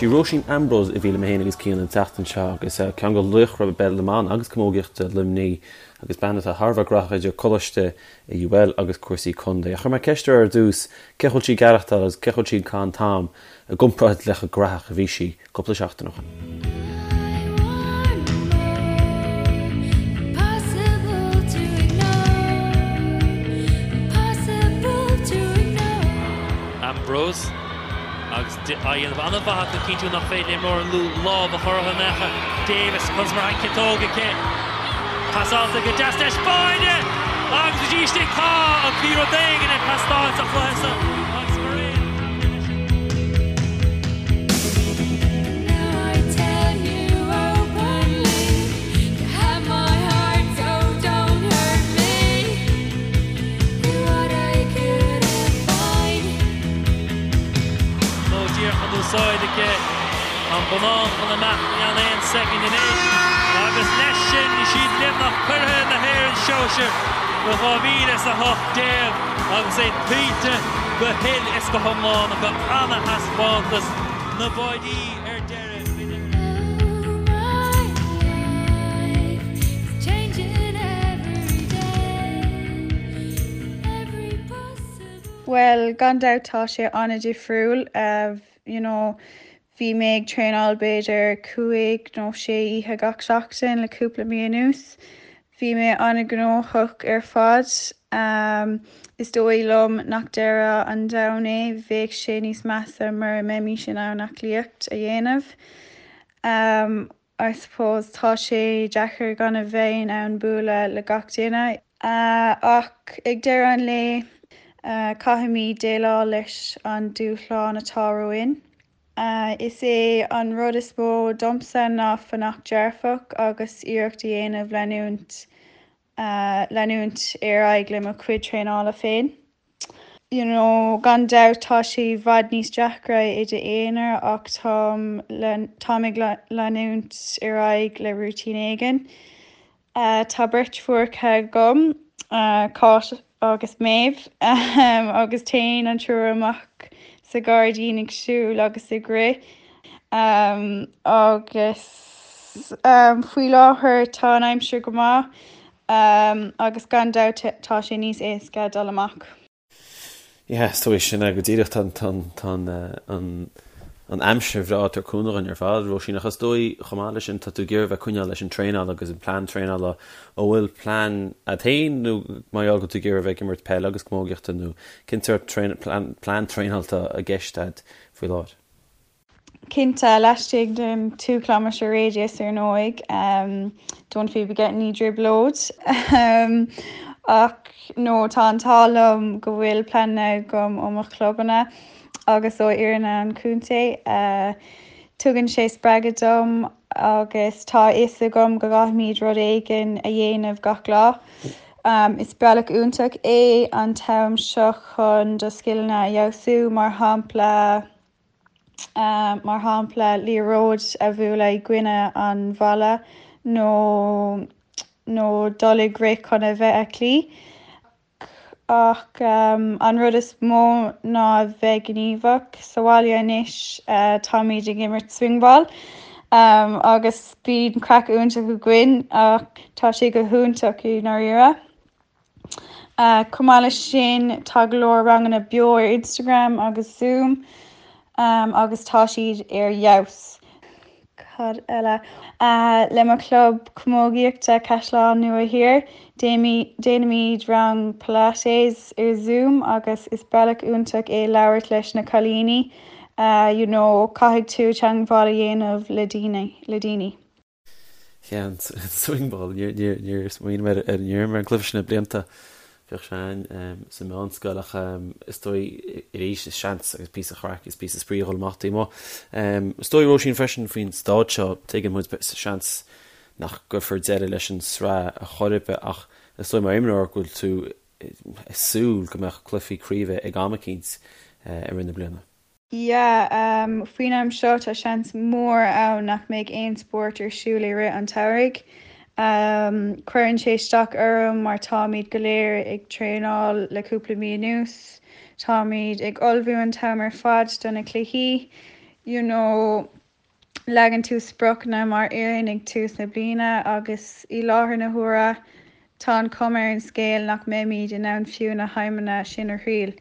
Sí Róisín Ambrose a bhí liom féin agus Cian an tseachtain seo agus ceann de laochra peil na mban agus camógaíochta Luimnigh agus bean atá thar a bheith graitheach idir coláiste i UL agus cúrsaí contae. Ach chuir mé ceist uirthi ar dtús cé chaoi bhfuil sí ag aireachtáil agus cé chaoi bhfuil sí ag caitheamh an t-am i gcomparáid le chomh graitheach a bhí sí cúpla seachtain ó shin. Ambrose agus á dhéanamh an-mhaith acu cinntiú nach féidir le imreoir an Lú lámh a chur orthu in aon chor. Davis conas mar an chiotóg aici. Pasáilte go deas leis Báine agus go dtí istigh tá ach bhí rud éigin ag teastáil sa chluiche seo agus mar aon leis an. Nó díreach an úsáid aici an bonnán chun imeacht i gceann aon soicind anois agus leis sin is iad Luimneach curaidh na hÉireann sóisir do 2018 agus é tuillte go huile is go hiomlán acu. Ana-thaispeántas na báidí ar deireadh. Bhuel, gan dabht tá sé an-difriúil. You know, bhí mé ag traenáil b'fhéidir cúig nó sé oíche gach seachtain le cúpla mí anuas. Bhí mé an-ghnóthach ar fad. Is dóigh liom nach deireadh an domhain é, bheadh sé níos measa mura mbeimis in ann aclaíocht a dhéanamh. I suppose tá sé deacair gan a bheith in ann bualadh le gach duine. Ach ag deireadh an lae, caithfimid déileáil leis an dúshlán atá romhainn. Is é an rud is mó domsa ná fanacht dearfach agus iarracht a dhéanamh leanúint leanúint ar aghaidh le mo chuid traenála féin. You know, gan dabht tá sé i bhfad níos deacra i d'aonar ach táim táim ag leanúint ar aghaidh le rúitín éigin. Tá beirt phucaí agam, Cáit agus Méabh, agus téann an triúr amach sa ghairdín ag siúl agus ag rith. Agus faoi láthair tá an aimsir go maith agus gan dabht tá sé níos éasca dul amach. Yeah, is dóigh sin é go díreach. Tá an an aimsir bhreá ag tabhairt cúnamh dhúinn ar fad, Róisín, ach is dóigh chomh maith leis sin tá tú ag iarraidh bheith ag coinneáil leis an traenáil agus an plean traenála. An bhfuil plean agat féin nó mar gheall go bhfuil tú ag iarraidh bheith ag imirt peile agus camógaíochta nó cén sórt plean traenála atá i gceist agat faoi láthair? Cinnte, laistigh den 2 kilometre radius ar ndóigh, don't be getting i dtrioblóid. Ach no, tá an t-ádh liom go bhfuil pleananna agam ó mo chlubanna agus ó fhoireann an chontae. Tugann sé spreagadh dom agus tá a fhios agam go gcaithfimid rud éigin a dhéanamh gach lá. Is bealach iontach é an t-am seo chun do scileanna a fheabhsú, mar shampla, mar shampla liathróid a bhualadh i gcoinne an bhalla nó nó dul ag rith chun a bheith aclaí. Ach an rud is mó ná a bheith gníomhach. Sa bhaile anois táimid ag imirt swingball agus bíonn craic iontach againn ach tá sé go hiontach i ndáiríre. Chomh maith leis sin, tá go leor ranganna beo ar Instagram agus Zoom agus tá siad ar fheabhas. Cad eile? Le mo chlub camógaíochta Caisleán Nua Thiar, déanaimid rang Pilates ar Zoom agus is bealach iontach é labhairt leis na cailíní, you know, caithfidh tú teagmháil a dhéanamh le daoine. Yeah, an swingball, níor smaoinigh mé ar an ar an gcluiche sin le blianta. Bhíodh sé ann sa mheánscoil ach is dóigh arís is seans agus píosa craic is píosa spraoi a dhul amach taobh amuigh. Is dóigh Róisín freisin faoin staid seo, tuigeann muid seans nach gcuirfear deireadh leis an sraith ar chor ar bith ach is dóigh mar imreoir go bhfuil tú ag súil go mbeadh cluichí craoibhe ag am eicínt i rith na bliana. Yeah, faoin am seo tá seans mór ann nach mbeidh aon spórt ar siúl i rith an tsamhraidh. Cuireann sé isteach orm mar táimid go léir ag traenáil le cúpla mí anuas. Táimid ag ullmhú an t-am ar fad do na cluichí. You know, leagann tú spriocanna mar fhoireann ag tús na bliana agus i láthair na huaire tá an chuma ar an scéal nach mbeimid in ann fiú na haidhmeanna sin a thriail.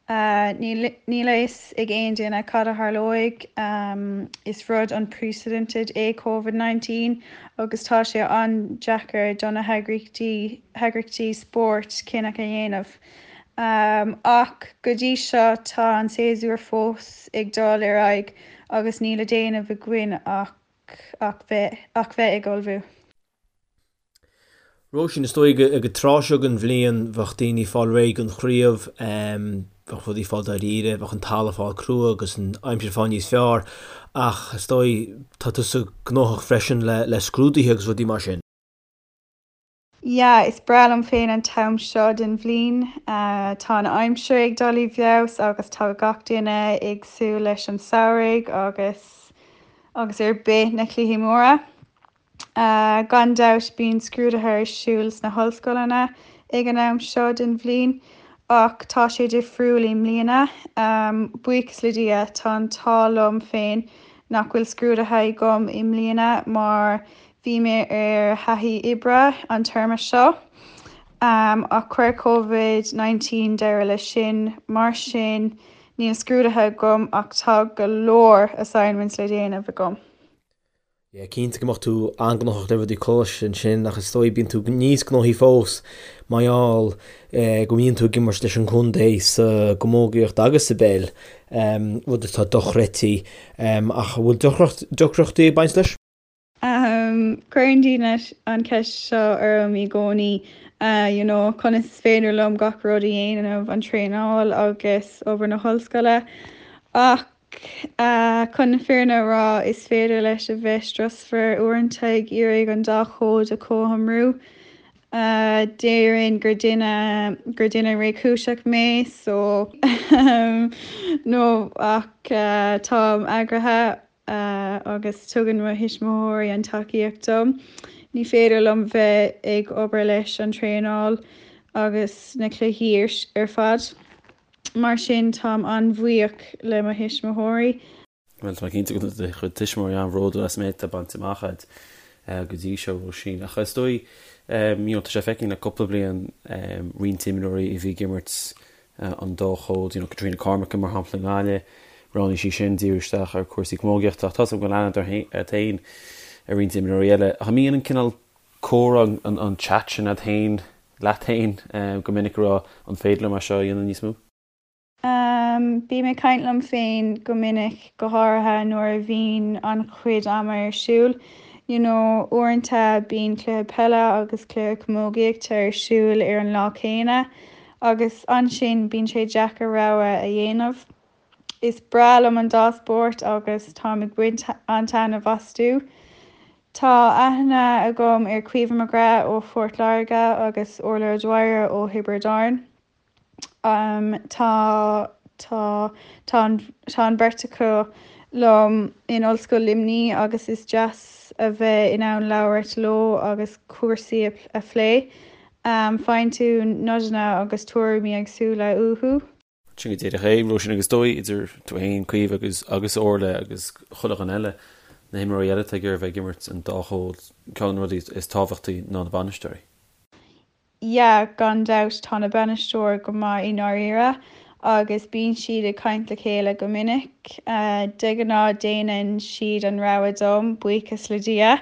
Níl a fhios ag aon duine cad a tharlóidh. Is rud unprecedented é Covid 19 agus tá sé an-deacair do na heagraíochtaí spóirt cinneadh a dhéanamh. Ach go dtí seo tá an séasúr fós ag dul ar aghaidh agus níl le déanamh againn ach ach bheith ach bheith ag ullmhú. Róisín, Is dóigh ag an tráth seo den bhliain bheadh daoine ag fáil réidh don chraobh, bheadh rudaí ag fáil dáiríre, bheadh an talamh ag fáil crua agus an aimsir ag fáil níos fearr ach is dóigh tá tusa gnóthach freisin le scrúduithe agus rudaí mar sin. Yeah, is breá liom féin an t-am seo den bhliain. Tá an aimsir ag dul i bhfeabhas agus tá gach duine ag súil leis an samhradh agus agus ar bith na cluichí móra. Gan dabht bíonn scrúduithe ar siúl sna hollscoileanna ag an am seo den bhliain ach tá sé difriúil i mbliana. Buíochas le Dia tá an t-ádh liom féin nach bhfuil scrúduithe agam i mbliana mar Bhí mé ar thaithí oibre an téarma seo ach chuir Covid 19 deireadh leis sin, mar sin níl scrúduithe agam ach tá go leor assignments le déanamh agam. Yeah, cinnte go mbeadh tú an-ghnóthach le rudaí coláiste ansin ach is dóigh bíonn tú níos gnóthaí fós mar gheall go mbíonn tú ag imirt leis an gcontae sa gcamógaíocht agus sa bpeil, rud atá dochreidte. Ach an bhfuil deacrachtaí ag baint leis? Cuireann daoine an cheist seo orm i gcónaí, you know, conas is féidir liom gach rud a dhéanamh, an traenáil agus obair na hollscoile. Ach chun na fírinne a rá, is féidir leis a bheith strusmhar uaireanta ag iarraidh an dá chód a chothromú. Déarfainn gur duine, gur duine réchúiseach mé, so no, ach táim eagraithe. agus tugann mo thuismitheoirí an tacaíocht dom. Ní féidir liom bheith ag obair leis an traenáil agus na cluichí ar fad. Mar sin táim an-bhuíoch le mo thuismitheoirí. Bhuel, tá mé cinnte go bhfuil do chuid tuismitheoirí an-bhródúil as an méid atá bainte amach agat go dtí seo, Róisín. Ach is dóigh, you know, tá sé feicthe le cúpla bliain roinnt imreoirí a bhí ag imirt an dá chód, you know, Catriona Cormican mar shampla i nGaillimh, roghnaigh sí sin díriú isteach ar cúrsaí camógaíochta ach tá's agam go bhfuil aithne agat féin ar roinnt imreoirí eile. Ach an mbíonn an cineál comhrá, an chat sin agat féin, leat féin go minic ag rá an féidir liom é seo a dhéanamh níos mó? Bím ag caint liom féin go minic, go háirithe nuair a bhíonn an-chuid ama ar siúl. You know, uaireanta bíonn cluiche peile agus cluiche camógaíochta ar siúl ar an lá céanna agus ansin bíonn sé deacair rogha a dhéanamh. Is breá liom an dá spórt agus táim ag baint an-taitneamh astu. Tá aithne agam ar Caoimhe McGrath ó Phort Láirge agus Orla O'Dwyer ó Thiobraid Árann. Tá tá tá an tá an bheirt acu liom in Ollscoil Luimnigh agus is deas a bheith in ann labhairt leo agus cúrsaí a phlé. Faigheann tú nodanna agus tuairimí éagsúla uathu. Sin go díreach é, Róisín, agus is dóigh, idir tú féin, Caoimhe agus agus Orla agus chuile dhuine eile, na himreoirí eile atá ag iarraidh bheith ag imirt an dá chód, ceann de na rudaí is tábhachtaí ná na bainisteoirí. Yeah, gan dabht, tá na bainisteoir go maith i ndáiríre agus bíonn siad ag caint le chéile go minic. De ghnáth déanann siad an rogha dom, buíochas le Dia.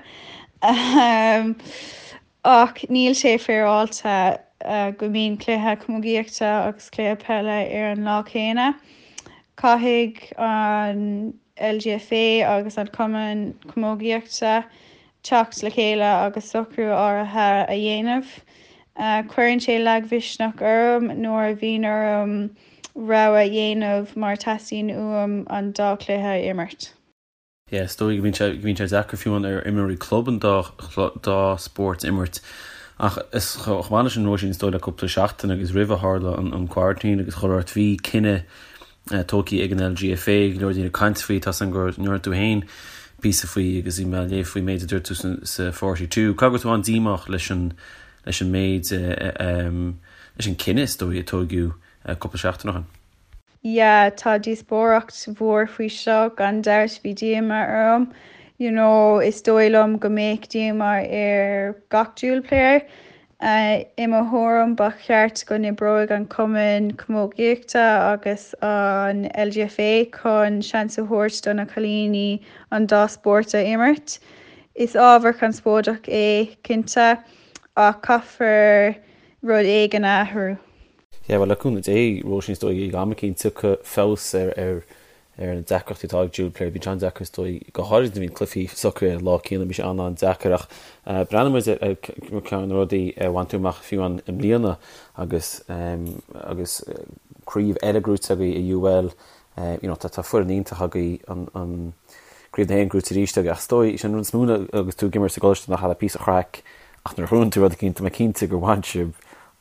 Ach níl sé féaráilte go mbíonn cluiche camógaíochta agus cluiche peile ar an lá céanna. Caithfidh an LGFA agus an Cumann Camógaíochta teacht le chéile agus socrú áirithe a dhéanamh. Cuireann sé lagmhisneach orm nuair a bhíonn orm rogha a dhéanamh mar teastaíonn uaim an dá chluiche a imirt. Yeah, is dóigh go mbíonn sé, go mbíonn sé deacair fiú amháin ar imreoirí club an dá, dá spórt a imirt. Ach is chomh maith leis sin Róisín, is dóigh le cúpla seachtain agus roimh a tharla an, an quarantine agus chuile shórt, bhí cinneadh tógtha ag an LGFA, go leor daoine ag caint faoi, tá's agam go ndearna tú féin píosa faoi agus bhí mé ag léamh faoin méid a dúirt tú sa, sa 42. Caithfidh go raibh tú an-díomách leis an, leis an méid, leis an cinneadh is dóigh a tóigeadh cúpla seachtain ó shin. Yeah, tá díospóireacht mhór faoi seo, gan dabht bhí díomá orm. You know, is dóigh liom go mbeadh díomá ar gach dual player. I mo thuairim ba cheart go n-oibreoidh an Cumann Camógaíochta agus an LGFA chun seans a thabhairt do na cailíní an dá spórt a imirt. Is ábhar conspóideach é, cinnte, ach caithfear rud éigin a athrú. Yeah, bhuel, le cúnamh Dé, Róisín, is dóigh ag am eicínt tiocfaidh feabhas ar ar ar na deacrachtaí atá ag dual player. Bíonn sé an-deacair is dóigh, go háirid nuair a bhíonn cluichí socraithe ar an lá céanna, bíonn sé an-an-deacair ach breathnaíonn muid ar ceann de na rudaí a bhain tú amach fiú amháin i mbliana agus agus craobh eile gnóite agaibh i UL, you know, tá tá foireann iontach agaibh an an Craobh na hÉireann gnóite arís agaibh ach is dóigh, sin an rud is mó agus tú ag imirt sa gcoláiste nach le píosa craic ach nuair a ghnóthaíonn tú rud eicínt tá mé cinnte gur bhain sibh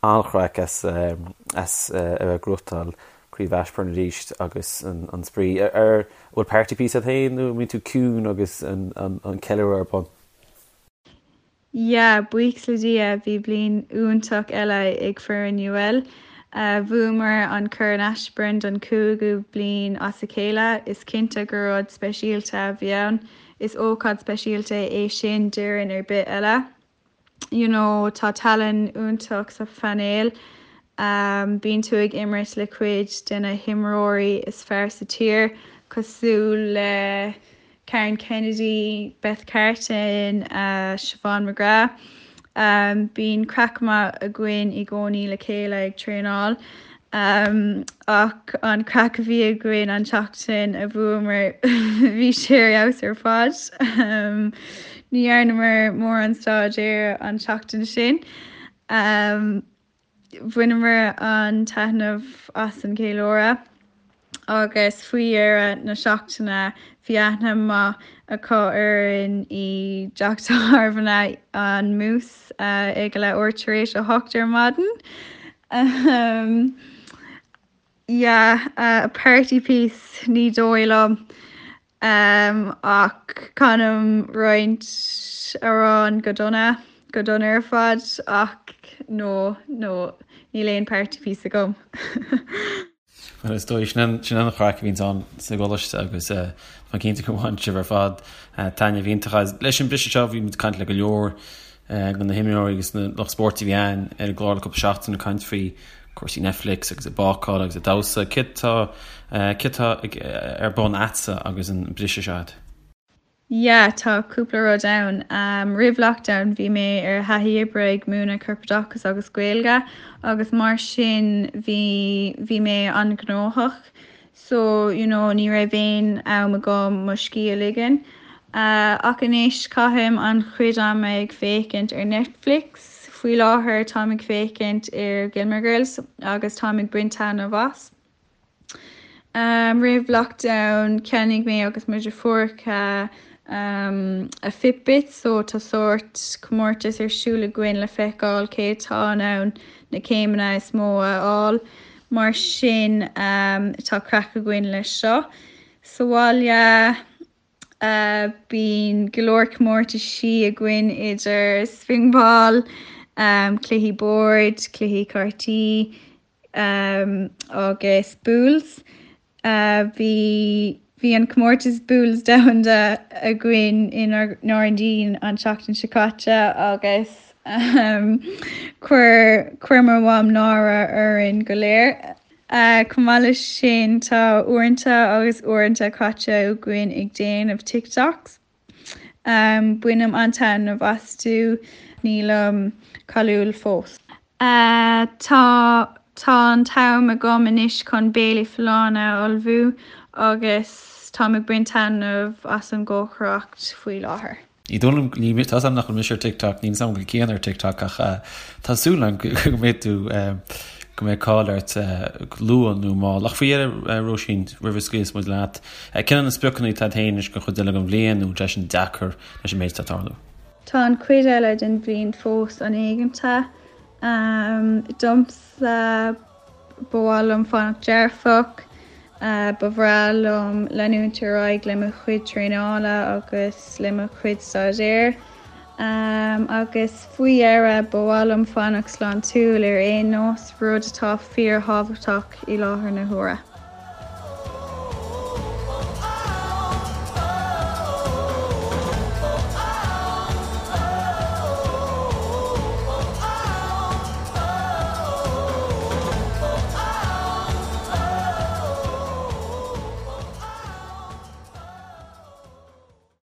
an-chraic as a bheith ag gnóthachtáil Craobh Ashbourne arís agus an spraoi. Ar bhfuil party piece agat féin nó an mbíonn tú ciúin agus an ceiliúradh ar bun? Yeah, buíochas le Dia, bhí bliain iontach eile ag foireann UL. Bhuamar an Corn Ashbourne don chúigiú bliain as a chéile. Is cinnte gur rud speisialta a bhí ann. Is ócáid speisialta é sin d'fhoireann ar bith eile. you know tá tallann iontach sa phainéal. Bíonn tú ag imirt le cuid de na himreoirí is fearr sa tír, cosúil le Karen Kennedy, Beth Carton, Siobhán McGrath. Bíonn craic maith againn i gcónaí le chéile ag traenáil. Ach an craic a bhí againn an tseachtain a bhuamar bhí sé ar fheabhas ar fad. Ní dhearnamar mórán staidéir an tseachtain sin. Bhaineamar an-taitneamh as an gceiliúradh agus faoi dheireadh na seachtaine bhí aithne maith acu orainn i dteach tábhairne an Moose ag a leathuair tar éis a hocht ar maidin. Yeah, a party piece, ní dóigh liom. Ach canaim roinnt amhrán go dona, go dona ar fad, ach no, no, níl aon party piece agam. Bhuel, is dóigh, sin an chraic a bhíonns ann sa gcoláiste agus tá mé cinnte gur bhain sibh ar fad taitneamh iontach as. Leis an briseadh seo, bhí muid ag caint le go leor de na himreoirí agus na lucht spóirt a bhí ann ar an gclár le cúpla seachtain ag caint faoi cúrsaí Netflix agus ag bácáil agus ag damhsa. Céard tá, céard tá ar bun a'dsa agus an briseadh seo a'd? Yeah, tá cúpla rud ann. Roimh lockdown bhí mé ar thaithí oibre ag múineadh corpoideachas agus Gaeilge agus mar sin bhí bhí mé an-ghnóthach so you know ní raibh aon am agam mo scíth a ligean. Ach anois caithim an-chuid ama ag féachaint ar Netflix. Faoi láthair táim ag féachaint ar Gilmore Girls agus táim ag baint taitneamh as. Roimh lockdown cheannaigh mé agus mo dheirfiúracha a Fitbit so tá sórt comórtas ar siúl againn le feiceáil cé atá in ann na céimeanna is mó a fháil. Mar sin tá craic againn leis seo. Sa bhaile bíonn go leor comórtaisí againn idir swingball, cluichí boird, cluichí cártaí, agus boules. Bhí bhí an comórtas boules domhanda againn i nGairdín an tseachtain seo caite agus chuir chuir mo mham náire orainn go léir. Chomh maith leis sin tá uaireanta agus uaireanta caite againn ag déanamh TikToks. Bainim an-taitneamh astu, nílim cáiliúil fós. Tá tá an t-am agam anois chun béilí folláine a ullmhú agus táim ag baint taitneamh as an gcócaireacht faoi láthair. Ní dóigh liom, ní, tá 'fhios a'm nach bhfuil mise ar TikTok, níl 'fhios a'm an bhfuil Cian ar TikTok ach tá súil a'm go mbeidh tú, go mbeidh cáil ort go luath nó mall. Ach faoi dheireadh, Róisín, roimh a scaoilfeas muid leat, cén iad na spriocanna atá agat féin anois don chuid eile den bhliain nó an bhfuil sé sin deacair leis an méid atá ag tarlú? Tá an chuid eile den bhliain fós an-éiginnte. Domsa, ba mhaith liom fanacht dearfach. Ba bhreá liom leanúint ar aghaidh le mo chuid traenála agus le mo chuid staidéir. Agus faoi dheireadh, ba mhaith liom fanacht sláintiúil ar aon nós, rud atá fíorthábhachtach i láthair na huaire.